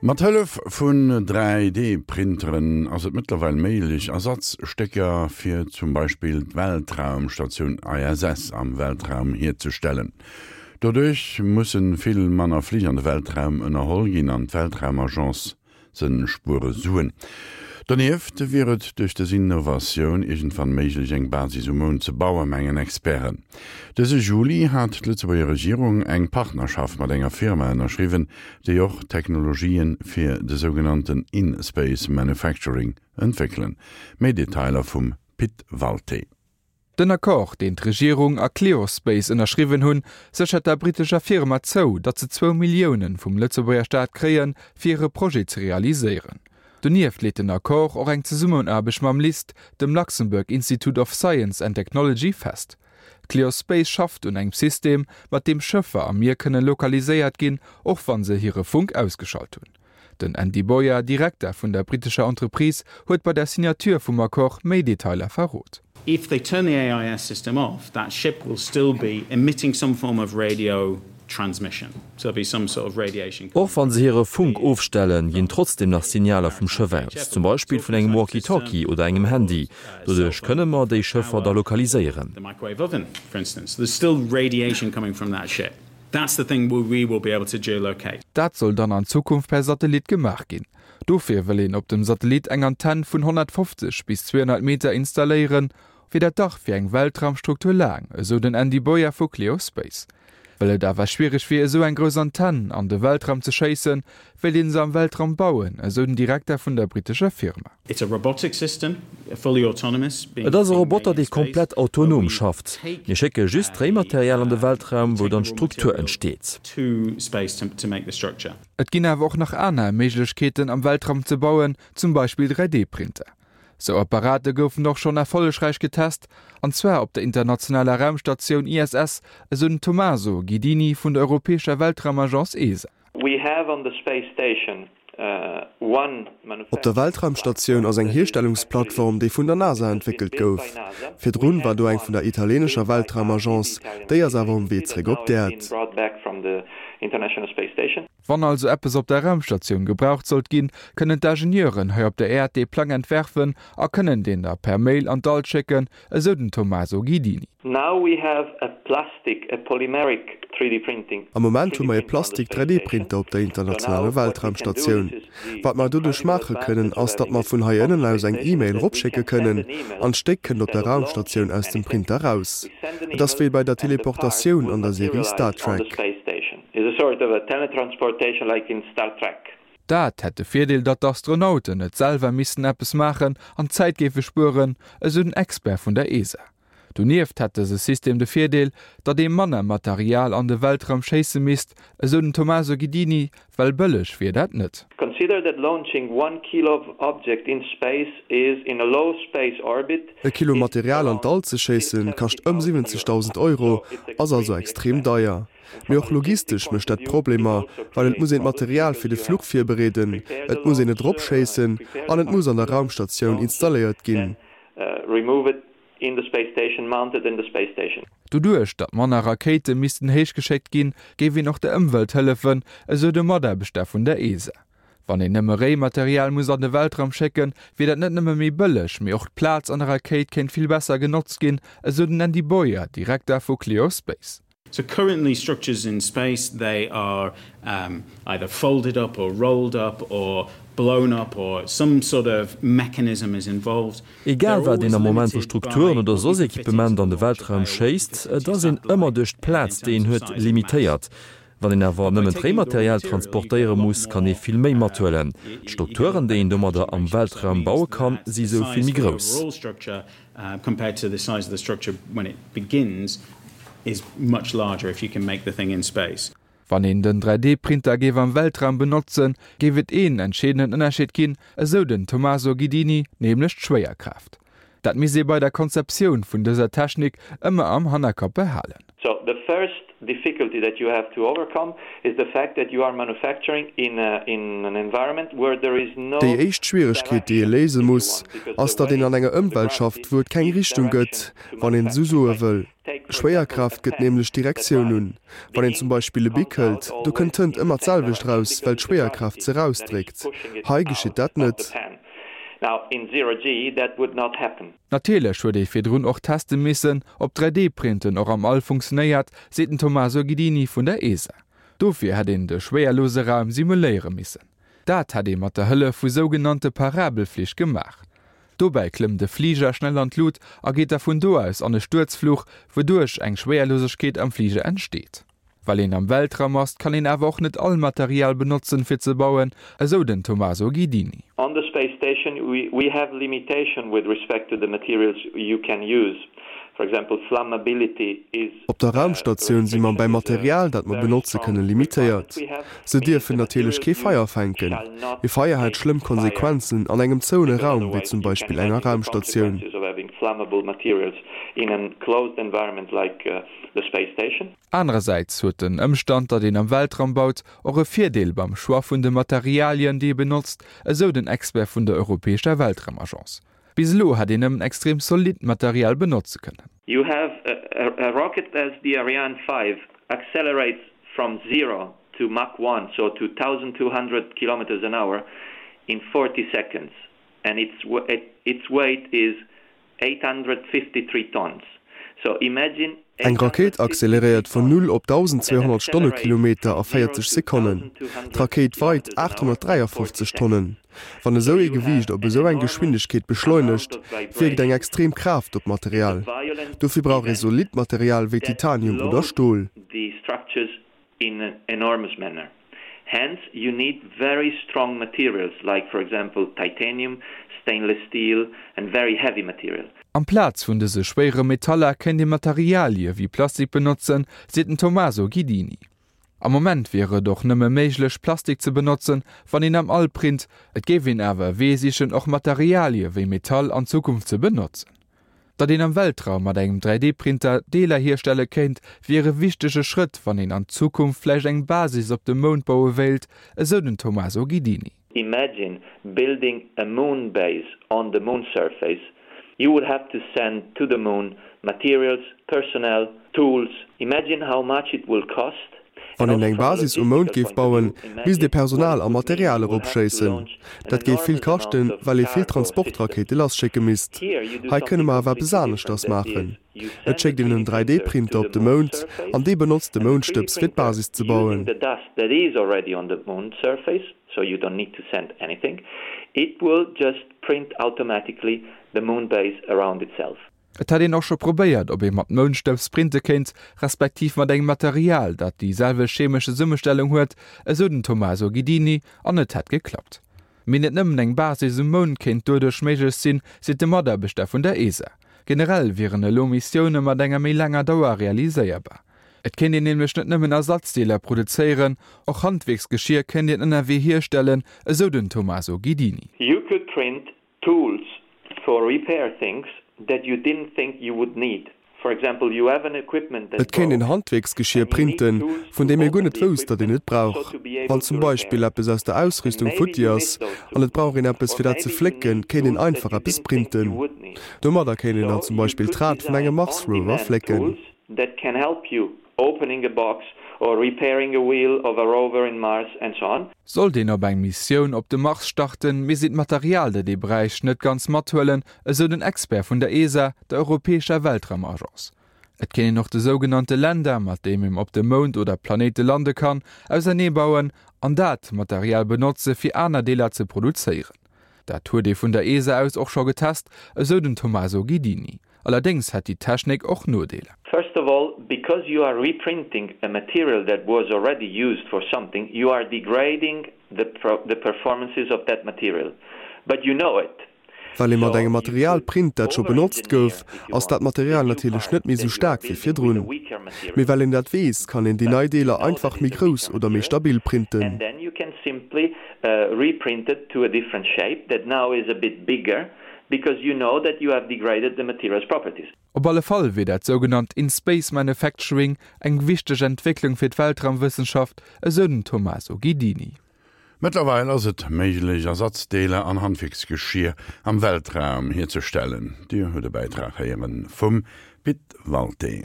Mat Hëllef vun 3D-Printeren ass et mëttlerweil méiglech, Ersatzstécker fir zum Beispill d'Weltraumstatioun ISS am Weltraum hierzestellen. Doduerch musse vill manner Flich an de Weltraum ënnerholl ginn an d'Weltraumagence Se spuere Suen. Donieft wier et duerch dës Innovatioun iergendwann méiglech, eng Basis um Mound ze bauen, mengen Experten. Dëse Juli hat d'Lëtzebuerger Regierung eng Partnerschaft mat enger Firma ënnerschriwwen, déi och Technologië fir de sougenannten In-Space Manufacturing entwéckelen. Méi Detailer vum Pit Walté. Den Accord, deen d'Regierung a Kleospace ënnerschriwwen hunn, séchert der brittescher Firma zou, datt se zwou Millioune vum Lëtzebuerger Staat kréien, fir hire Projet ze realiséieren. Donieft leet den Accord och eng Zesummenaarbecht mam LIST, dem Luxembourg Institute of Science and Technology, fest. Kleospace schafft un engem System, mat deem Schëffer am Mier kënne lokaliséiert ginn, och wa se hire Funk ausgeschalt hunn. Den Andy Boyer, Direkter vun der brittescher Entreprise, huet bei der Signature vum Accord méi Detailer verrot. If they turn the AIS system off, that ship will still be emitting some form of radio transmission. So there'll be some sort of radiation Och wann se hire Funk ofstellen, ginn trotzdeem nach Signaler vum Schëff aus, zum Beispill vun engem Walkie-Talkie oder engem Handy. Doduerch kënne mer déi Schëffer da lokaliséieren. The microwave oven, for instance. There's still radiation coming from that ship. That's the thing we will be able to geolocate. Dat soll dann an Zukunft per Satellit gemaach ginn. Dofir wëll een op dem Satellit eng Antenn vun 150 bis 200 Meter installéieren. Wier dat dach fir eng Weltraumstruktur laang, esou den Andy Boyer vu Kleospace. Well et awer schwiereg wier esou eng grouss Antenn an de Weltraum ze schéissen, wéilt een se am Weltraum bauen, esou den Direkter vun der brittescher Firma. It's a robotic system, fully autonomous, being Et ass e Roboter, dee komplett autonom schafft. Mir schécke just d'Réimaterial an de Weltraum, wou dann d'Struktur entsteet. Et ginn awer och nach aner Méiglechkeeten am Weltraum ze bauen, zum Beispill 3D-Printer. Sou Apparate goufen och schonn erfollegräich getest, an zwar op der internationaler Raumstatioun ISS, esou den Tommaso Guidini vun der europäescher Weltraumagence ESA. We have on the space station one Op der Weltraumstatioun ass eng Hierstellungsplattform, déi vun der NASA entwéckelt gouf. Virdrun war do eng vun der italienescher Weltraumagence, déi ass awer um Wee zeréck op d'Äerd. Wann also eppes op der Raumstatioun gebraucht sollt ginn, kënnen d'Ingenieuren hei op der Äerd dee Plang entwerfen a kënnen deen da per Mail an d'All schécken, esou den Tommaso Guidini. Now we have a plastic, a polymeric 3D printing. Am Moment hu mer ee Plastik 3D Printer op der internationaler Weltraumstatioun. Wat mer doduerch maache kënnen, ass datt mer vun hei ënnen aus eng E-Mail eropschécke kënnen, an d'Stéck kënnt op der Raumstatioun aus dem Printer raus. Et ass wéi bei der Teleportatioun an der Serie Star Trek. Dat hätt de Virdeel, datt d'Astronauten net selwer missten eppes maachen an Zäit géife spueren, esou den Expert vun der ESA. Donieft hätt dëse System de Virdeel, datt ee manner Material an de Weltraum schéisse misst, esou den Tommaso Guidini, well bëlleg wier dat net. Consider that launching one kilo of object in space is in a low space orbit E Kilo Material an d'All ze schéissen, kascht ëm 70.000 Euro, ass also extrem deier. Mee och logistesch mécht dat Problemer, well et muss een d'Material fir de Fluch virbereeden, et muss een et eropschéissen an et muss an der Raumstatioun installéiert ginn. In the space station, mounted in the space station. Doduerch, datt manner Rakéite missten héich geschéckt ginn, géif een och der Ëmwelt hëllefen, esou de Mataarbechter vun der ESA. Wann een nëmme Réimaterial muss an de Weltraum schécken, wier dat net nëmme méi bëlleg, mee och d'Plaz an der Rakéit kéint vill besser genotzt ginn, esou den Andy Boyer, Direkter vu Kleospace. So currently structures in space they are either folded up or rolled up or blown up or some sort of mechanism is involved. Egal wat een am Moment vu Strukturen oder soss Equipement an de Weltraum schéisst, et ass een ëmmer duerch d'Plaz déi een huet limitéiert. Wann een awer nëmmen d'Réimaterial transportéiere muss, kann ee vill méi mathuelen. D'Strukturen déi een domadder am Weltraum baue kann, si sou vill méi grouss. Compared to the size of the structure when it begins is much larger if you can make the thing in space. Wann een den 3D-Printer géif am Weltraum benotzen, géif et een entscheedenden Ënnerscheed ginn, esou den Tommaso Guidini, nämlech d'Schwéierkraaft. Dat misst ee bei der Konzeptioun vun dëser Technik ëmmer am Hannerkapp behalen. So the first difficulty that you have to overcome is the fact that you are manufacturing in a, in an environment where there is no Déi éischt Schwieregkeet, déi ee léise muss, ass, datt een an enger Ëmwelt schafft, wou et keng Richtung gëtt, wann een esou soe wëll. Schwéierkraaft gëtt nämlech d'Direktioun un. Wann een zum Beispill e Bic hëlt, do kënnt d'Tënt ëmmer d'selwecht raus, well d'Schwéierkraaft se rausdréckt. Hei geschitt dat net. Now in zero-G that would not happen. Natierlech huet ee virdrun och teste missen, ob 3D-Printen och am All funktionéiert, seet den Tommaso Ghidini vun der ESA. Dofir hätt een de schwéierlose Raum simuléiere missen. Dat hätt ee mat der Hëllef vu sougenannte Parabelflich gemaach. Dobäi klëmmt e Fliger schnell an d'Lut a geet da vun do aus an e Stuerzfluch, wouduerch eng Schwéierlosegkeet am Fliger entsteet. Well een am Weltraum ass, kann een awer och net all Material benotzen, fir ze bauen, esou den Tommaso Ghidini. On the space station we have limitation with respect to the materials you can use. For example, flammability is. Op der Raumstatioun si mer beim Material, dat mer benotze kënnen, limitéiert. Se dierfen natierlech kee Feier fänken. E Feier hätt schlëmm Konsequenzen an engem zouene Raum, wéi zum Beispill enger Raumstatioun. The space station. Anerersäits huet den Ëmstand, datt een am Weltraum baut, och e Virdeel beim Choix vun de Materialien, déi ee benotzt, esou den Expert vun der europäescher Weltraumagence. Bis elo hätt een nëmmen extrem zolidd Material benotze kënnen. You have a rocket as the Ariane 5 accelerates from zero to Mach 1, so to 1,200 kilometers an hour, in 40 seconds and its weight is 853 tons. So imagine Eng Rakéit acceleréiert vun null op 1.200 Stonnekilometer a 40 Sekonnen. D'Rakéit weit 853 Tonnen. Wann esou ee Gewiicht op esou eng Geschwindegkeet beschleunegt, wierkt eng extrem Kraaft op d'Material. Dofir brauch ee zolidd Material wéi Titanium oder Stol. In an enormous manner. Hence you need very strong materials like for example titanium, stainless steel and very heavy material. Amplaz vun dëse schwéiere Metaller kéint ee Materialie wéi Plastik benotzen, seet den Tommaso Ghidini. Am Moment wier et och nëmme méiglech, Plastik ze benotzen, wann een am All print. Et géif een awer e Wee sichen, och Materialie wéi Metall an Zukunft ze benotzen. Datt een am Weltraum mat engem 3D-Printer Deeler hierstelle kéint, wier e wichtege Schrëtt, wann een an Zukunft vläicht eng Basis op dem Mound baue wéilt, esou den Tommaso Ghidini. Imagine building a moon base on the moon surface, you would have to send to the moon materials, personnel, tools, imagine how much it will cost Wann een eng Basis um Mound géif bauen, misst ee Personal a Material eropschéissen. Dat géif vill kaschten, well ee vill Transportrakéite lasschécke misst. Hei kënne mer awer eppes aneschters maachen. Et schéckt een en 3D-Printer op de Mound an dee benotzt de Moundstëbs fir d'Basis ze bauen. Et hätt een och scho probéiert, ob ee mat Moundstëbs printe kéint, respektiv mat engem Material, dat déi selwecht chemesch Zesummestellung huet, esou den Tommaso Ghidini, an et hätt geklappt. Mee net nëmmen eng Basis um Mound kéint doduerch méiglech sinn, seet de Mataarbechter vun der ESA. Generell wieren elo Missioune mat enger méi laanger Dauer realiséierbar. Et kéint een nämlech net nëmmen Ersatzdeeler produzéieren, och Handwierksgeschier kéint een ënnerwee hierstellen, esou den Tommaso Ghidini. You could print Tools for repair things that you didn't think you would need. For example, you have an equipment that Et kéint een broke Handwierksgeschier and you need printen, tools vun to deem ee guer open net the wousst, datt equipment een et so brauch. to be Wann able zum to repair Beispill it. eppes aus der And Ausrüstung maybe futti you ass miss those an et tools. brauch een eppes Or fir dat ze maybe you flécken, need kéint een tools that einfach you eppes didn't think you printen. would need. Domadder kéint een dann So zum you Beispill could d'Rad vun engem design on Mars-Rover demand flécken. tools that can help you opening a box or repairing a wheel of a rover in Mars and so on. Sollt een op eng Missioun op de Mars starten, misst een d'Material, dat ee bräicht, net ganz mathuelen, esou den Expert vun der ESA, der europäescher Weltraumagence. Et kéint een och de sougenannte Lander, mat deem een op dem Mound oder Planéite lande kann, auserneebauen an dat Material benotze fir aner Deeler ze produzéieren. Dat huet ee vun der ESA aus och scho getest, esou den Tommaso Ghidini. Allerdéngs hätt déi Technik och Nodeeler. First of all, because you are reprinting a material that was already used for something, you are degrading the the performances of that material. But you know it. Well ee mat engem Material print, dat scho benotzt gouf, ass dat Material natierlech net méi sou staark wéi virdrun. Mee well een dat weess, kann een déi nei Deeler einfach méi grouss oder méi stabil printen. Op alle Fall wier dat sougenannt In-Space Manufacturing eng wichteg Entwécklung fir d'Weltraumwëssenschaft, esou den Tommaso Ghidini. Mëttlerweil ass et méiglech, Ersatzdeeler an Handwierksgeschier am Weltraum hierzestellen. Dir hutt e Bäitrag héiere vum Pit Walté.